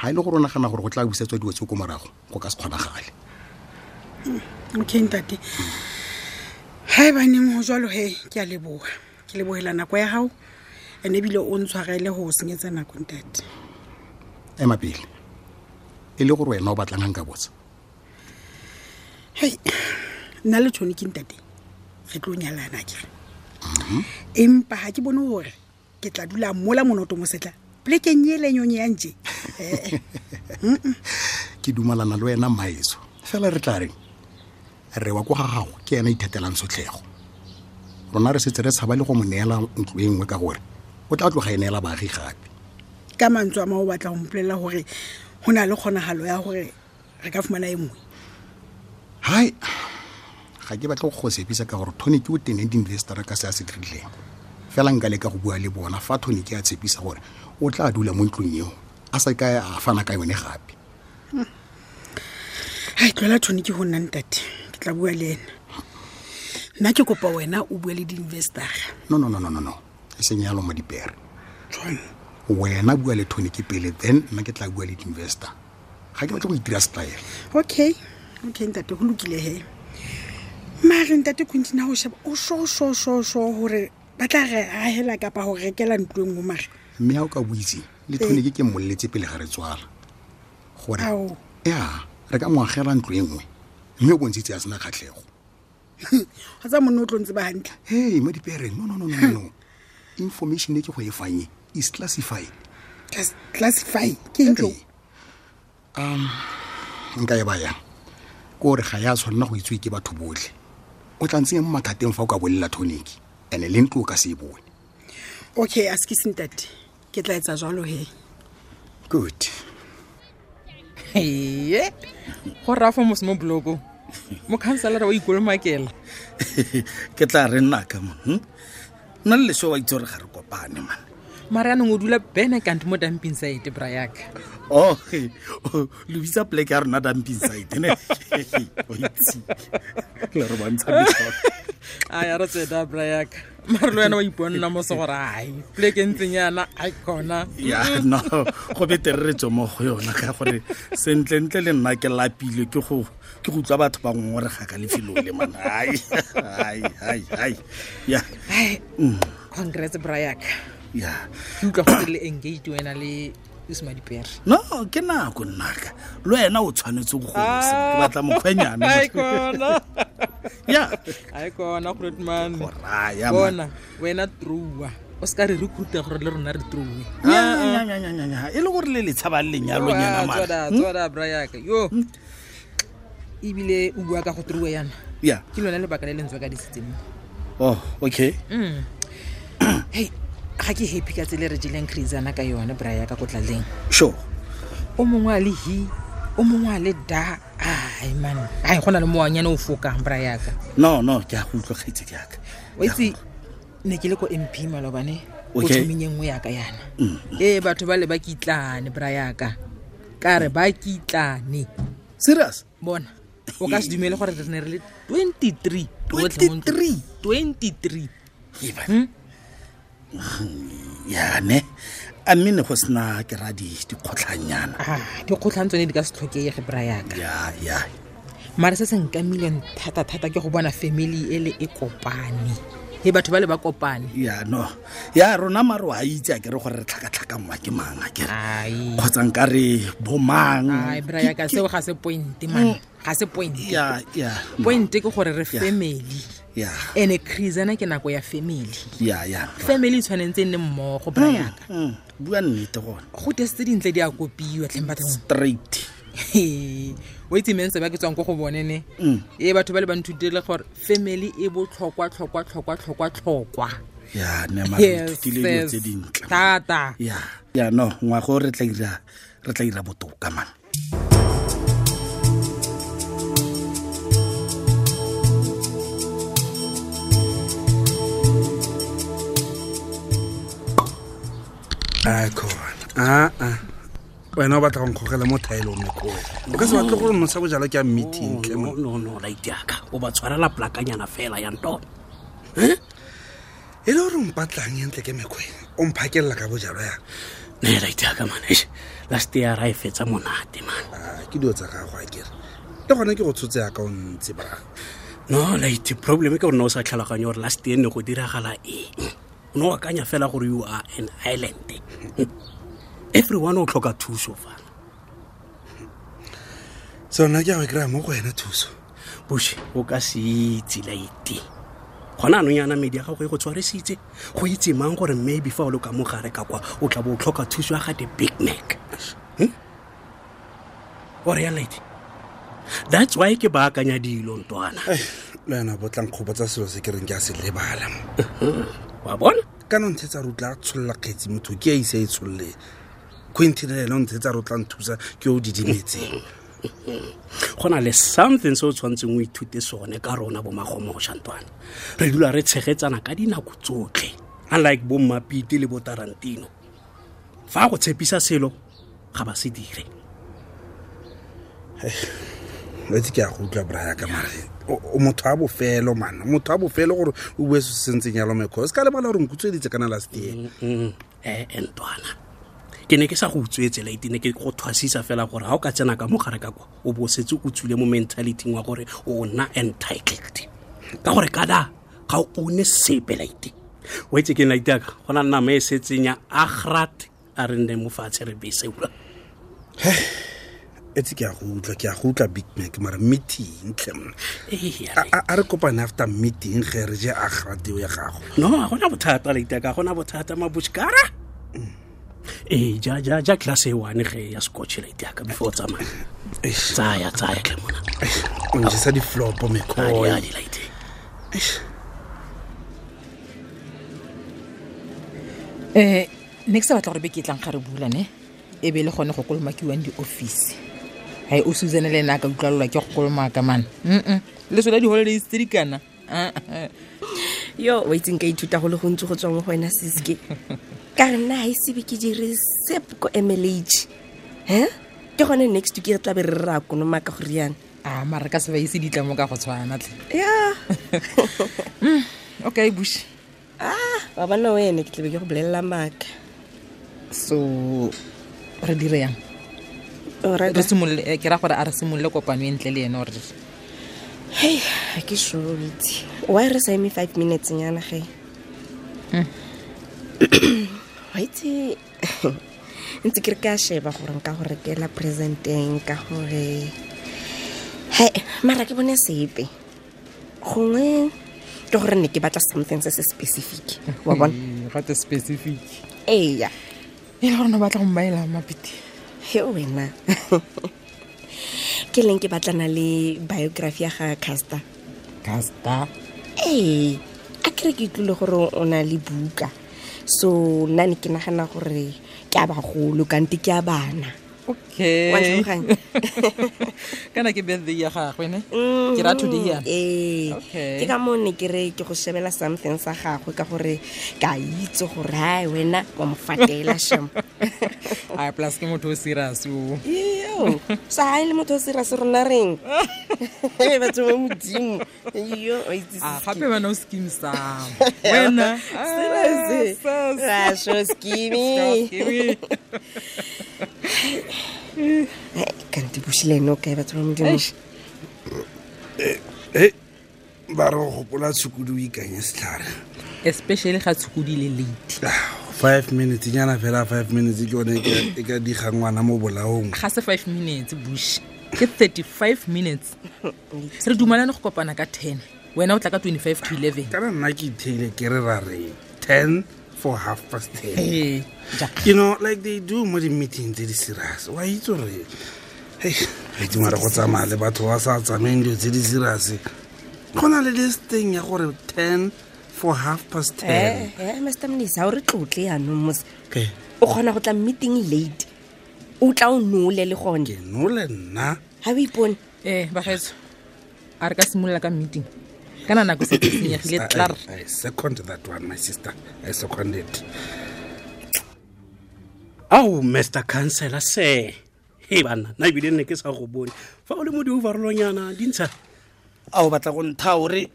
ga e le gore o nagana gore go tla busetswa dilo tse ko morago, go ka se kgonagale. Okay ntate, Ga e baneng go jalo he, ke a leboga, ke lebogela nako ya gago, and ebile o ntshwarele go o senyetsa nako, ntate. Ema pele, e le gore wena o batlang ga nka botsa? Hei, nna le tshone ke ntate, re tlo nyalana kere, empa ga ke bone gore ke tla dula mola monoto mosetla polekeng e lenyonye ya ntse. Ke dumalana le wena, maeso. Fela re tla reng, re wa kwa ga gago ke ena ithatelang sotlhego. Rona re setse re tshaba le go mo neela ntlo e nngwe ka gore o tla tloga e neela baagi gape. Ka mantswe a ma, o batla go mpolelela gore go na le kgonagalo ya gore re ka fumana e nngwe? Hai, ga ke batle go go sepisa ka gore Tony ke o teneng di-investora ka se a se dirileng. Fela nka leka go bua le bona fa Tony ke a tshepisa gore o tla dula mo ntlong eo, a sa ka a fana ka yone gape. Hai, tloela Tony ke go nna, ntate, ke tla bua le ena. Nna ke kopa wena o bue le di-investara. No, no, no, no, no, no, e seng yalo mo dipere. Jwang? Wena bua le Tony ke pele, then nna ke tla bua le di-investor. Ga ke batle go itira style. Okay, ntate, go lokile he. Mare ntate Quentin, ha o sheba o sho sho sho sho gore ba tla re agela kapa go rekela ntlo e nngwe mare? Mme ga o ka boitse le Tony ke mmoleletse pele ga re tswala gore Ao. Ya, re ka mo agela ntlo e nngwe, mme o bontshitse a sena kgatlhego. Ga tsa monne o tlo ntse ba hantle. Hey, mo dipereng, no, no, no, no, no, no. Information e ke go e fang e is classified. Classify ke eng jo? Nka e bayang ke gore ga ya tshwanela go itsewe ke batho botlhe. O tla ntsenya mo mathateng fa o ka bolela Tonic, and-e le ntlo o ka se e bone. Okay, a se ke sentate, ke tla etsa jalo he. Good. Ee, go rafa mose mo blokong, mokhanselara wa ikolomakela. Ke tla re nnaka mon, Nna le leso wa itse gore ga re kopane man. Mare anong o dula bene kante mo dumping site, brayaka. Oh, lo bitsa poleke ya rona dumping site ne? O itse le re bontsha metlholo. A ya re tseda, brayaka, mare le wena wa iponna mose gore ai poleke ntseng yana ai kona. Ya, no, go betere re tswe mo go yona ka gore sentlentle le nna ke lapile ke go utlwa batho ba ngongorega ka lefelo le man. Ai ai ai ai, ya. Ai, congrats, brayaka. Ya. Ke utlwa go le engaged wena le Usmadipere. No, ke nako nnaka, le wena o tshwanetse go gosa, ke batla mokgwenyane. Ai kona. Ya. Ai kona, grootman. Go raya, man. Bona wena, trua o se ka re recruita gore le rona re true. Nya, nya, nya, nya, nya, nya. E le gore le le tshaba lenyalonyana mara. Tswada tswada, brayaka, yo ebile o bua ka go true yana. Ya. Ke lone lebaka le lentswe ka disitseng. Oh, okay. Hei, ga ke happy ka tsele re jeleng crazana ka yone, brayaka, ko tlaleng. Sure. O mongwe a le hi, o mongwe a le da. Ai man, ai go na le moanyane o fokang, brayaka. No, no, ke a go utlwa, kgaitsedi yaka. O itse ne ke le ko MP malobane o Okay. thomeng e nngwe yaka yana. Ee, batho ba le ba kitlane, brayaka, ka re ba kitlane. Serious? Bona, o ka se dumele gore re ne re le 23 rotlhe mo ntlong. 23? 23. Eba. Ya ne, a mme ne go sena ke ra dikgotlhanyana? Ah, dikgotlhang tsone di ka se tlhokege, brayaka. Ya, ya. Mare se se nkamileng thata-thata ke go bona family ele e kopane, e batho ba le ba kopane. Ya, no, ya rona mare wa itse a kere gore re tlhakatlhakangwa ke mang a kere? Ai. Kgotsa nka re bomang? Ai, brayaka, seo ga se point man, ga se point. Ya, ya. Point ke gore re Ya. family. Ya. Ene crazana ke nako ya family. Ya, ya. Family e tshwanetse e nne mmogo, brayaka. Bua nnete gone. Go tese tse dintle di a kopiwa tlheng bathong. Straight. O itse mense ba ke tswang ko go bone ne, ee, batho ba le ba nthutile gore family e botlhokwa tlhokwa tlhokwa tlhokwa tlhokwa. Ya ne, mare re ithutile dilo Yes, tse dintle. Thata. Ya, ya, no, ngwago re tla ira botoka man. A khona aa, wena o batla go nkgogela mo thaelong mekoo, o ka se batle gore nosa bojalwa ke a meeting tle No, no, no, laitiaka, o ba tshwarela plakanyana fela ya ntona. E le gore o mpatlang entle ke mekgwe o mphakelela ka bojalwa yang? Ne, laitiaka man, eish, last year ra e fetsa monate man. Ah, ke dilo tsa gago a kere, le gone ke go tshotse yaka o ntse bra. No late problem ke gore ne o sa tlhaloganye gore last year ne go diragala eng. O ne o akanya fela gore you are an island. Everyone o tlhoka thuso fa. So nna ke a go e kry-a mo go wena thuso. Bush, o ka se itse late. Gona anong yana medi ya gago e go tshwarisitse go itse mang gore maybe fa o le ka mogare ka kwa o tla bo o tlhoka thuso ya ga the big mac. O re ya late. That's why ke baakanya dilo ntwana. Le wena bo tlang kgopotsa selo se ke reng ke a se lebala. Wa bona? Kana o ntshetsa re o tla tsholola kgetsi motho ke a ise a e tsholole. Quentin le ene o ntshetsa re o tla nthusa ke o didimetseng. Go na le something se o tshwanetseng o ithute sone ka rona bo magomoša ntwana. Re dula re tshegetsana ka dinako tsotlhe, unlike bo Mmapite le bo Tarantino. Fa go tshepisa selo ga ba se dire. Wa itse ke a go utlwa braya ka mare o motho a bofelo man, motho a bofelo gore o bue se se ntseng yalo mekgwa. O se ka lebala gore nkutsweditse kana last year. Ntwana, ke ne ke sa go utswetse late, ne ke go thwasisa fela gore ha o ka tsena ka mogare ka kwa o bo setse o tswile mo mentality wa gore o nna entitled. Ka gore kada ga o one sepe late. O itse ke late ka go na nama e setseng ya agrat a re nne mo fatshe re bese ura. Etse ke a go utlwa, ke a go utlwa Big Mac mara meeting tlhe monna. Ee, A re kopane after meeting ge re je agrat eo ya gago. No, ga gona bothata late ka gona bothata mabushkara. Ee, ja ja ja class e one ge ya scotch late ka before o tsamaya. Tsaya tsaya tlhe mona. O njesa di-flop mekhoe. Adi, adi, late. Ne ke sa batla gore beke e tlang ga re bula ne e be le gone go kolomakiwang di-office. Hai o Susan le ena a ka utlwalelwa ke go kolomaka man. Le sona di-holidays tse di kana. Yo, wa itseng ka ithuta go le gontsi go tswa mo go wena Siske. Ka re nna ha e sebe ke dire sep ko MLH. He? Ke gone next week re tla be re re ra konomaka go riana. A mara ka se ba ise ditlamo ka go tshwana tle. Ya. Okay, Bush. Wa bona wena ke tla be ke go bolelela maaka. So re dire yang? O rata? Re simolole, ke ra gore a re simolole kopano e ntle le ene ore. Hei, ha ke sure itse. Why re sa eme 5 minutes nyana ge? Wa itse ntse ke re ka sheba gore nka go rekela presenteng ka gore he mara ke bone sepe. Gongwe ke gore ne ke batla something se se specific. Wa bona? Gate specific. Eya. E le gore no batla go mmaela Mapiti. He wena. Ke leng ke batlana le biography ya ga Caster. Caster? Ee, a kere ke utlwile gore o na le buka. So nna ne ke nagana gore ke a bagolo kante ke a bana. Okay. Wa ntlhaloganya? Kana ke birthday ya gagwe ne? Ke ra today yana. Ee. Okay. Ke ka moo ne ke re ke go shebela something sa gagwe ka gore ke a itse gore hai wena wa mo fatela shem. Ai, plus ke motho o serious o. Iyo. Sa ha e le motho o serious rona reng? Ee, batho ba Modimo. Iyo, o itse Ah, se gape wena o scheme sa. Wena. Serious. Ah, sis. Ah, sure, scheme. Scheme. Ai, kante Bushi le ene o kae batho ba Modimo? Eish. Ba re go gopola tshukudu o ikanye setlhare. Especially ga tshukudu e le late. 5 minutes nyana fela, 5 minutes ke yone e ka diga ngwana mo bolaong. Ga se 5 minutes Bushi, ke 35 minutes. Re dumalane go kopana ka 10, wena o tla ka 25 to 11. Kana nna ke itheile ke re ra re 10 for half past 10. Ee, ja. You know, like they do mo di-meeting tse di serious. Wa itse gore, hei, wa itse mara go tsamaya le batho ba sa tsamayeng dilo tse di serious. Go na le this thing ya gore 10 for half past 10. Mister Mnisi, ha o re tlotle yanong mos. Okay. O kgona go tla meeting late. O tla o nole le gone. Ke nole nna. Ha o ipone? Bagaetsho, a re ka simolola ka meeting. Kana nako se e senyegile klaar. I second that one, my sister. I second it. Au, Mister Councillor, se. He bana, nna ebile ne ke sa go bone. Fa o le mo di-overallonyana, di ntsha. A o batla go ntha hore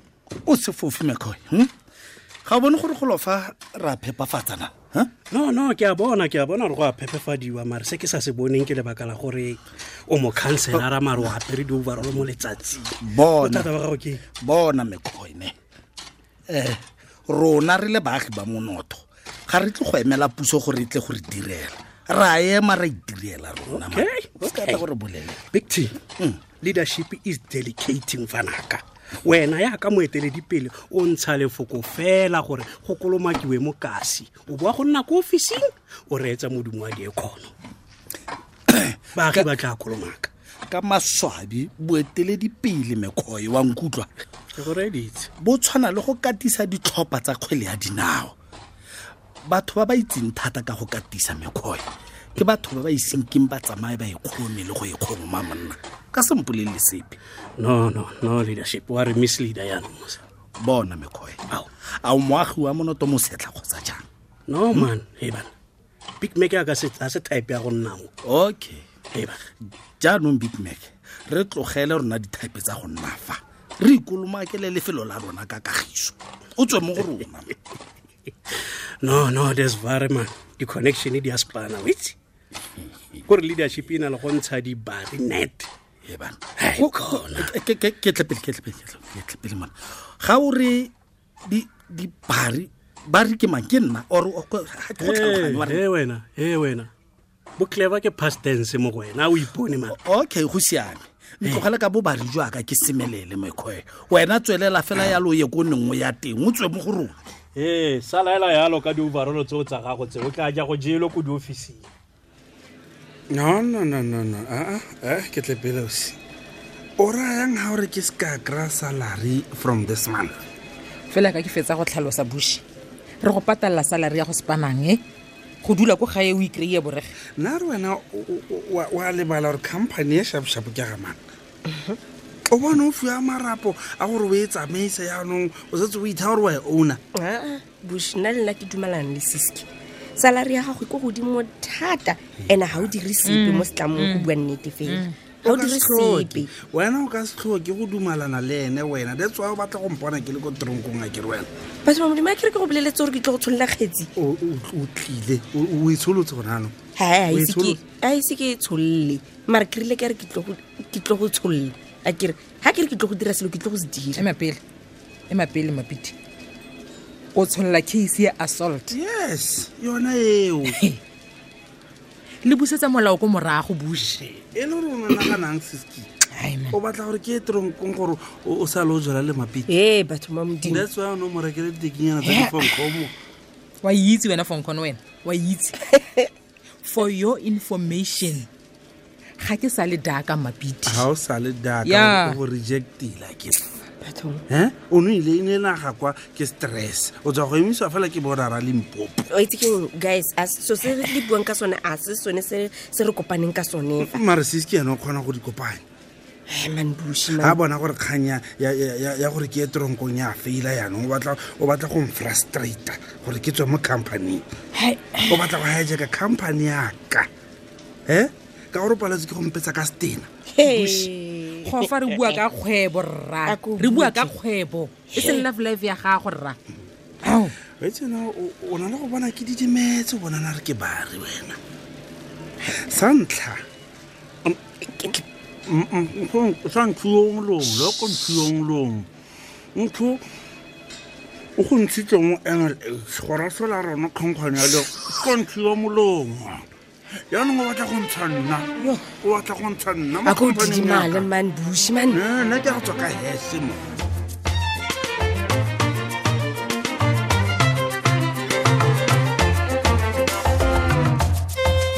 o se fofe mekhoe, Ga o bone gore go lofa ra phepafatsa na? No, ke a bona gore go a phepefadiwa, mare se ke sa se boneng ke lebaka la gore o mo counselara mare o apere di-overall mo letsatsing. Bona. Bothata ba gago ke Bona mekgone, rona re le baagi ba monoto ga re tle go emela puso gore e tle go re direla, ra ema ra itirela rona man. Okay, O se ka tla gore bolele. Big T, leadership is delegating fanaka. Wena yaka moeteledipele o ntsha lefoko fela gore go kolomakiwe mo kasi, o boa go nna ko ofising o reetsa modumo wa diekgono. Baagi ba tla kolomaka. Ka maswabi boeteledipele mekgoi wa nkutlwa Ke go reeditse. Bo tshwana le go katisa ditlhopha tsa kgwele ya dinao. Batho ba ba itseng thata ka go katisa mekgoi ke batho ba ba iseng keng ba tsamaye ba ikgome le go ikgoma monna ka sempolelele sepe. No, leadership wa re misleader yaanong mose. Bona mekgoi, Ao. a o moagi wa monoto mosetlha kgotsa jang? No man, hey bana, Big Mac a se type ya go nna mo. Okay. Hey bana. Jaanong Big Mac, re tlogele rona ditype tsa go nna fa, re ikolomakele lefelo la rona ka kagiso, o tswe mo go rona. No, there's very man, di-connection di a spana, o itse kore leadership e na le go ntsha dibari net. Ee bana. Hai, khona. Ke tle pele, ke tle pele, ke tle pele, ke tle pele mona. Ga o re dibari, bari ke mang? Ke nna or ga ke go tlhaloganye wa re- He wena bo clever ke past tense mo go wena, a o ipone man. Okay, go siame, ntlogele ka bobari jwaka ke semelele mekgwe, wena tswelela fela yalo o ye ko nengwe ya teng, o tswe mo go rona. Ee, sala ela yalo ka di-overall tseo tsa gago tse o tla ja go jelo ko diofising. No, no, no, no, no. Ke tle pele ausi. O rayang ha o re ke se ka kry-a salary from this month? Fela ka ke fetsa go tlhalosa Bush, re go patalla salary ya go sepanang e go dula ko gae o ikry-e borege. Nna re wena wa lebala gore company e shaposhapo ke ya gamang. O bone o fiwa marapo a gore o e tsamaise, yaanong o setse o itha gore wa e owner. Aa, Bush, nna le nna ke dumalana le Siski. Salary ya gago e ko godimo thata, and ga o dire sepe mo setlamong, go bua nnete fela ga o dire sepe. Wena o ka se tlhoke go dumalana le ene wena, that's why o batla go mpona ke le ko tronkong, a kere wena. Batho ba Modimo, a kere ke go boleletse gore ke tlo go tsholola kgetsi. O tlile o e tsholotse gone anong. Hai, O e tsholotse. a ise ke e tsholole, mare ke rile ke re ke tlo go tsholola, a kere ga ke re ke tlo go dira selo, ke tlo go se dira. Ema pele Mapiti, o tsholola case ya assault? Yes, yona eo. Le busetsa molao ko morago, Bush. E le gore o naganang, Siski? Ai, man. O batla gore ke ye tronkong gore o sa le o jala le Mapiti? Ee, batho ba Modimo. That's why o ne o mo rekele ditekinyana tsa difonkgomo. Wa itse wena fonkgono, wena wa itse. For your information, ga ke sa le daka Mapiti. Ga o sa le daka? Yeah. O go rejectile ke Bathong. O ne ile e ne naga kwa ke stress, o tswa go emisiwa fela ke borara Limpopo. O itse keng, guys, a so se re le buang ka sone a se sone se se re kopaneng ka sone fa. Mare Siski ene o kgona go di kopanya. Ai, man, Bush, A man. bona gore kgang ya gore ke ye tronkong ya faila, yaanong o batla go mfrustrata gore ke tswe mo companyng. O batla go hijacka company yaka e ka gore o paletse ke go mpetsa ka stena. Hey. Go fa re bua ka kgwebo rra, A ko re bua ka botse. kgwebo e seng love life ya gago rra. Ao. Wetsena o na le go bona ke didimetse, o bonana re ke bari wena sa ntlha sa nthuong long loko nthuong long ntho o go ntshitse mo NLH gore a sola rona kgankgwane ya le ko nthuo molomo, yaanong o batla go ntsha nna, o batla go ntsha nna mo A ko company-eng ya didimale ka. man, Bush, man. Eh, nna ke a go tswa ka hese mo.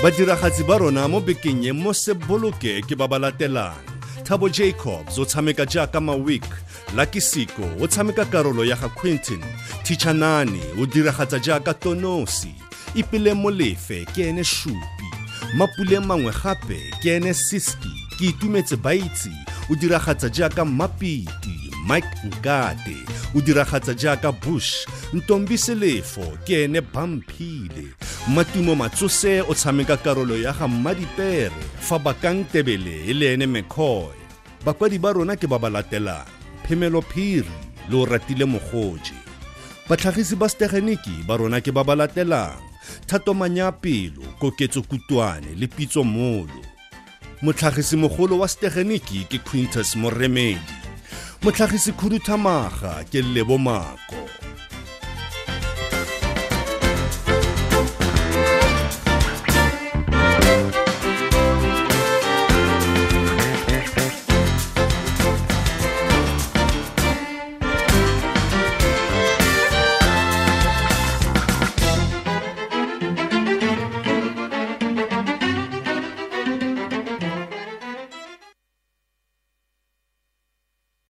Badiragatsi ba rona mo bekeng e mo Seboloke ke ba ba latelang: Thabo Jacobs o tshameka jaaka Mawik, Lucky Siko o tshameka karolo ya ga Quentin, Tichanani o diragatsa jaaka Tonosi, Ipele Molefe ke ene Shupi, Mapule mangwe gape ke ene Siski, Ke Itumetse Baitse o diragatsa jaaka Mapiti, Mike Nkate o diragatsa jaaka Bush, Ntombi Selefo ke ene Bamphile, Matumo Matsose o tshameka karolo ya ga Mmadipere, fa Bakang Tebele e le ene McCoy. Bakwadi ba rona ke ba ba latelang: Phemelo Phiri le o ratile Mogoje. Batlhagisi ba setegeniki ba rona ke ba ba latelang: Thato Manyapelo, Koketso Kutwane le Pitso Molo. Motlhagisimogolo wa setegeniki ke Quintus Moremedi. Motlhagisi khuduthamaga ke Lebo Mako.